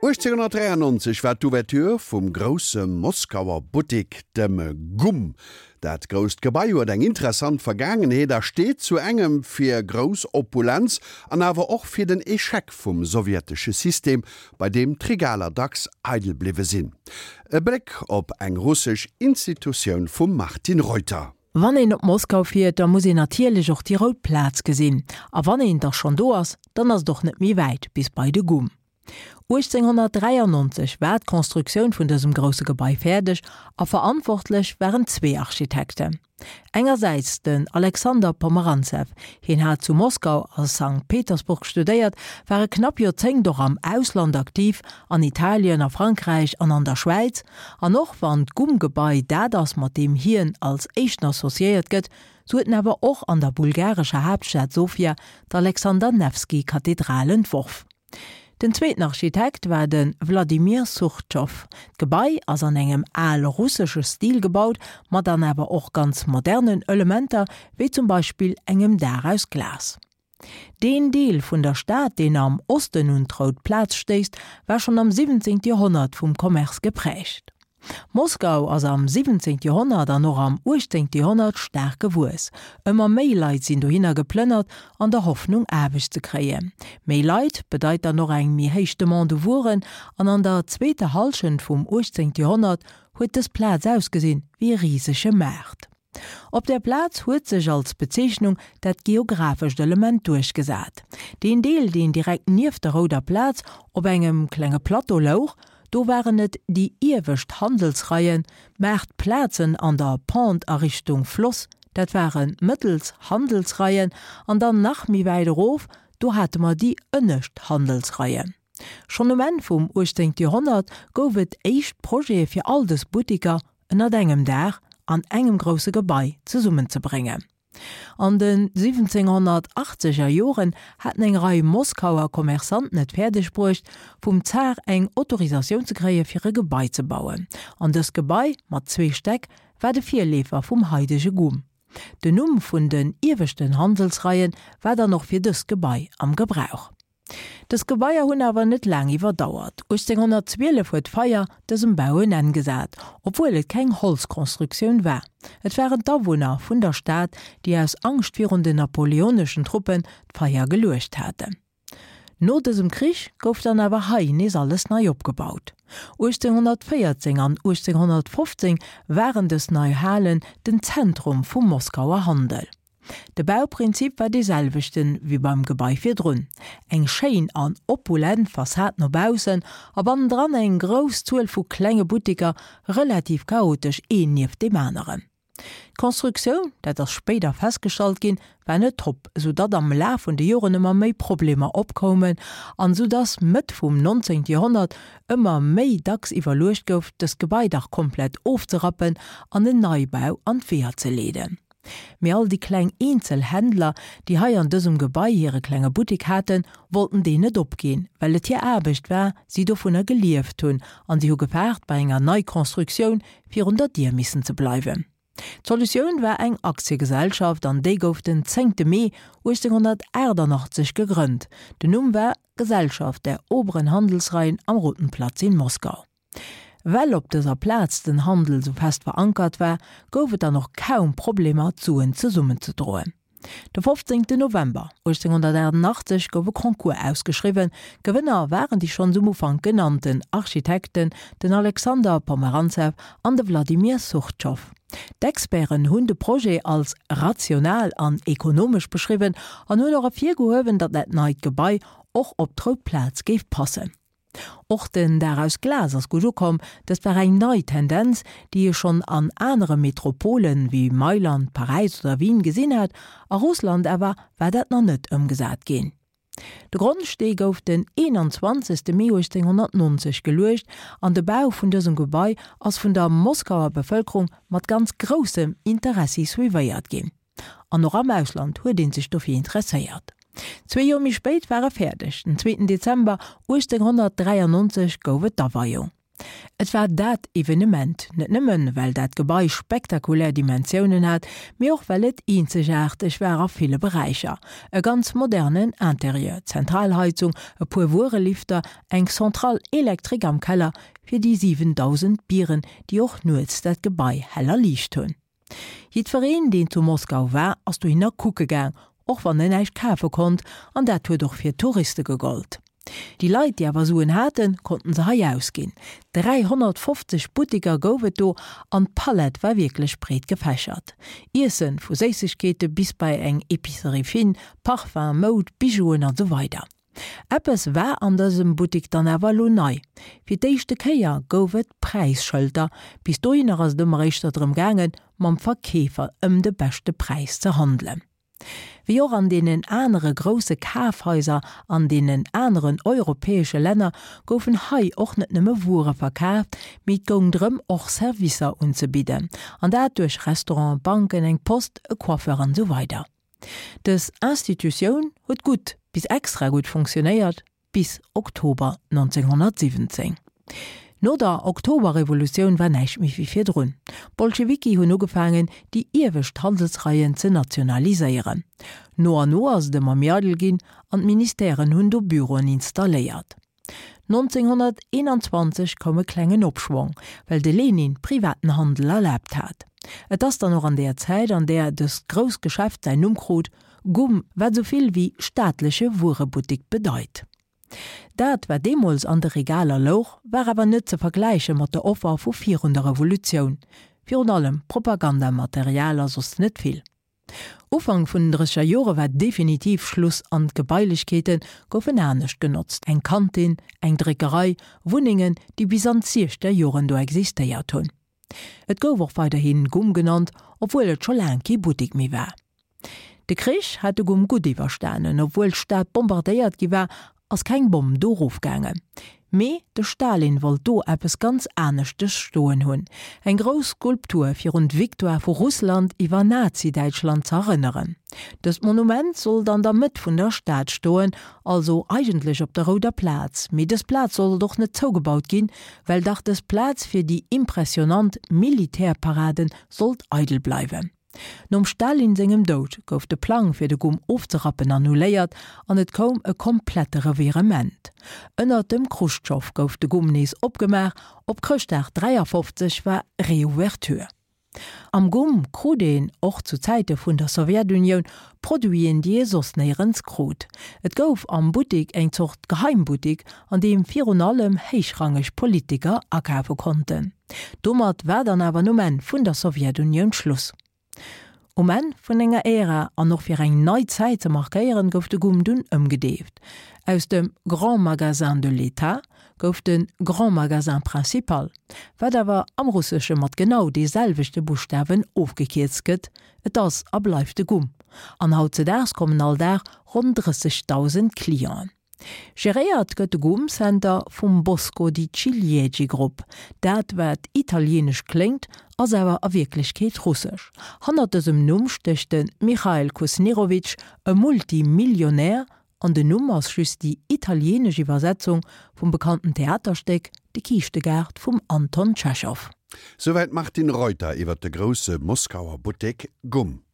1893 war d'Ouverture vum grousse Moskauer Buttik, dem Gumm. Dat grousst Gebai huet eng interessant Vergaangenheet a steet zu engem fir grouss Opulenz an awer och fir den Echec vum sowjetesche System, bei deem d'Regaler dacks eidel bliwwe sinn. E Bléck op eng russesch Institutioun vum Martine Reuter. Wann een op Moskau fiert, da muss een natierlech och déi rout Plaz gesinn. A wann een da schonn do ass, dann ass et och net méi wäit bis bei de Gumm. 1893 war d'Constructioun vun dësem grousse Gebai fäerdeg a verantwortlech waren zwee Architekten. Engersäits den Alexander Pomerantsew, hien hat zu Moskau a Sankt Petersburg studéiert, war e knapp Joerzéngt och am Ausland aktiv, an Italien, a Frankräich an an der Schwäiz. An och wann d'Gumm-Gebai dat ass, mat deem hien als éischten associéiert gëtt, sou huet en awer och an der bulgarescher Haaptstad Sofia d'Alexander-Newski-Kathedral entworf. Den zweeten Architekt war de Wladimir Surchow. D'Gebai ass an engem al-russesche Stil gebaut, ma dann awer och ganz modernen Elementer, wéi zum Beispill engem Daach aus Glas. Deen Deel vun der Stad, deen am Osten un d'Rout Plaz stéisst, war schonn am 17. Joerhonnert vum Commerce geprägt. Moskau ass am 17. Joerhonnert an och am 18. Joerhonnert staark gewuess. Ëmmer méi Leit sinn dohinner geplënnert, an der Hoffnung Aarbecht ze kréien. Méi Leit bedeit dann och eng méi héich Demande u Wueren, an an der zweeter Hallschent vum 18. Joerhonnert huet dës Plaz ausgesinn wéi e risege Maart. Op där Plaz huet sech als Bezeechnung dat geographescht Element duerchgesat. Deen Deel, deen direkt nieft der Rouder Plaz op engem klenge Plateau louch, do waren et déi iewescht Handelsreien, d'Maartplazen an der Pente a Richtung Floss, dat ware mëttels Handelsreien, an dann nach méi wäit erof, do hate mer déi ënnescht Handelsreien. Schonn um Enn vum 18. Joerhonnert gouf et éischt Projete fir all dës Buttiker ënnert engem Daach an engem grousse Gebai zesummenzebréngen. An de 1780 er Joren haten eng Rei Moskauer Commerçanten et fäerdeg bruecht, vum Zar eng Autorisatioun ze kréie fir e Gebai ze bauen. An dëst Gebai mat zwee Stäck war de Virleefer vum haidege Gumm. Den Numm vun den ieweschten Handelsreien war dann och fir dëst Gebai am Gebrauch. Dës Gebaier hunn awer net laang iwwerdauert. 1812 huet d'Feier dësem Bau en Enn gesat, obwuel et keng Holzconstructioun war. Et waren d'Awunner vun der Stad, déi aus Angscht virun den napoleoneschen Truppen d'Feier geluecht haten. No dësem Krich gouf dann awer hei nees alles nei opgebaut. 1814 an 1815 waren dës nei Halen den Zentrum vum Moskauer Handel. De Bauprinzip war dee selwechten wéi beim Gebai virdrun, eng schéin an opulent Fassad no baussen a bannendran eng grouss Zuel vu klenge Buttiker, relativ chaotesch een nieft deem aneren. D'Constructioun, dat ass spéider festgestallt ginn, war net top, sou datt am Laf vun de Joren ëmmer méi Problemer opkoumen an sou datt Mëtt vum 19. Joerhonnert ëmmer méi dacks iwwerluecht gouf, dëst Gebai dach komplett ofzerappen an en Neibau an d'Weeër ze leeden. Mee all déi kleng Eenzelhändler, déi hei an dësem Gebai hire klenge Buttek haten, wollten deen net opginn, well et hir Aarbecht war, si dovunner gelieft hunn an si hu gefaart, bei enger Neiconstructioun virun der Dier missen ze bleiwen. D'Solutioun war eng Aktiegesellschaft an déi gouf den zéngte Mee 1888 gegrënnt. Den Numm war Gesellschaft der oberen Handelsreihen am Roten Platz in Moskau. Well op dëser Plaz den Handel sou fest verankert war, gouf et dann och kaum Problemer d'Suen zesummenzedroen. De 15 November 1888 gouf e Concours ausgeschriwwen. Gewënner waren déi schonns um Ufank genannten Architekten, den Alexander Pomerantsew an de Wladimir Surchow. D'Experten hunn de Projet als rational an ekonomesch beschriwwen an hunn och ervirgehuewen, datt dat neit Gebai och op d'Rout Plaz géif passen. Och den Daach aus Glas ass gutt ukomm. Dëst war eng nei Tendenz, déi ee schonn an anere Metropolen, wéi Mailand, Paräis oder Wien gesinn hat. A Russland awer war dat nach net ëmgesat ginn. De Grondstee gouf den 21. Mee 1890 geluecht an de Bau vun dësem Gebai ass vun der Moskauer Bevëlkerung mat ganz groussem Interessi suivéiert ginn. An och am Ausland huet ee sech dofir interesséiert. Zwee Joer méi spéit war e fäerdeg, den zweeten Dezember 1893 gouf et d'Aweiung. Et war dat Evenement, net nëmmen, well dat Gebai spektakulär Dimensiounen hat, mee och well et eenzegaarteg war a ville Beräicher, e ganz modernen Interieur, Zentralheizung, e puer Wuerelifter, eng Centrale électrique am Keller fir déi 7.000 Bieren, déi och nuets dat Gebai hell erliicht hunn. Jiddwereen, deen zu Moskau war, ass dohinner kucke gaang, och wann en näischt kafe konnt, an dat huet och fir d'Touriste gegollt. Déi Leit, déi awer Suen haten, konnten se hei ausginn. 350 Buttiker gouf et do an d'Palett war wierklech breet gefächert. Iessen, vu Séissegkeete bis bei eng Epicerie fine, Parfum, Moud, Bijouen an esou weider. Eppes war an dësem Buttik dann awer elo nei, Fir d'éischte Kéier gouf et Präisschëlter. Bis dohinner ass et ëmmer éischter drëm gaangen, mam Verkeefer ëm de beschte Präis ze handelen. Wéi och an deenen anere grousse Kafhaiser an deenen aneren europäesche Länner goufen hei och net nëmme Wuere verkaaft, mee et goung drëm och Servicer unzebidden, an dat duerch Restauranten, Banken, eng Post, e Coiffeur an esou weider. Dës Institutioun huet gutt bis extra gutt funktionéiert bis Oktober 1917. No der Oktoberrevolutioun war näischt méi wéi virdrun. D'Bolschewiki hunn ugefaangen, déi iewescht Handelsreien ze nationaliséieren. No an no ass et ëmmer méi eidel ginn an d'Ministèren hunn do Büroen installéiert. 1921 koum e klengen Opschwong, well de Lenin privaten Handel erlaabt hat. Et ass dann och an deeër Zäit, an deeër dëst grousst Geschäft säin Numm krut, Gumm, wat esou vill wéi staatleche Wuerebuttik bedeit. Dat, wat deemools an de Regaler louch, war awer net ze vergläiche mat der Offer vu virun der Revolutioun, virun allem Propagandamaterial a soss net vill. Ufank vun den drësseger Jore war definitiv Schluss an d'Gebailechkeete goufen anescht genotzt, eng Kantin, eng Dréckerei, Wunnengen, déi bis an d'siechzeger Joren do existéiert hunn. Et gouf och weiderhi Gumm genannt, obwuel et scho laang kee Buttek méi war. De Krich hat de Gumm gutt iwwerstanen, obwuel d'Stad bombardéiert gi war ass keng Bomm do rofgaangen. Mee de Stalin wollt do eppes ganz aneschtes stoen hunn, eng grouss Skulptur fir un d'Victoire vu Russland iwwer Nazi-Däitschland z'erënneren. Dëst Monument sollt an der Mëtt vun der Stad stoen, also eigentlech op der Rouder Plaz. Mee dës Plaz sollt och net zougebaut ginn, well dach dës Plaz fir déi impressionant Militärparaden sollt eidel bleiwen. Nom Stalin sengem Doud gouf de Plang fir de Gumm ofzerappen annuléiert an et koum e komplette Revirement. Ënnert dem Chruschtschow gouf de Gumm nees opgemaach, op Chrëschtdag 53 war Reouverture. Am Gumm krut een, och zu Zäite vun der Sowjetunioun, Produiten déi ee soss néierens krut. Et gouf am Buttik eng Zort Geheimbuttik, an deem virun allem héichrangeg Politiker akafe konnten. Domat war dann awer nom Enn vun der Sowjetunioun Schluss. Um Enn vun enger Ära an och fir eng nei Zäit ze markéieren, gouf de Gumm dunn ëmgedeeft. Aus dem Grand Magasin de l'État gouf de Grand Magasin Principal, wat awer am Russesche mat genau dee selwechte Buschtawen ofgekierzt gëtt, et ass a bleift de Gumm. An hautzedaags kommen all Dag ronn 30.000 Clienten. Geréiert gëtt de Gum Center vum Bosco di Ciliegi Grupp. Dat wat italienesch kléngt, ass awer a Wierklechkeet russesch. Hannert dësem Numm stécht de Michail Kusnirowitsch, e Multimillionär, an den Numm ass just déi italienesch Iwwersetzung vum bekannten Theaterstéck De Kiischtegaart vum Anton Tschechow. Souwäit d'Martine Reuter iwwer de grousse Moskauer Buttek Gum.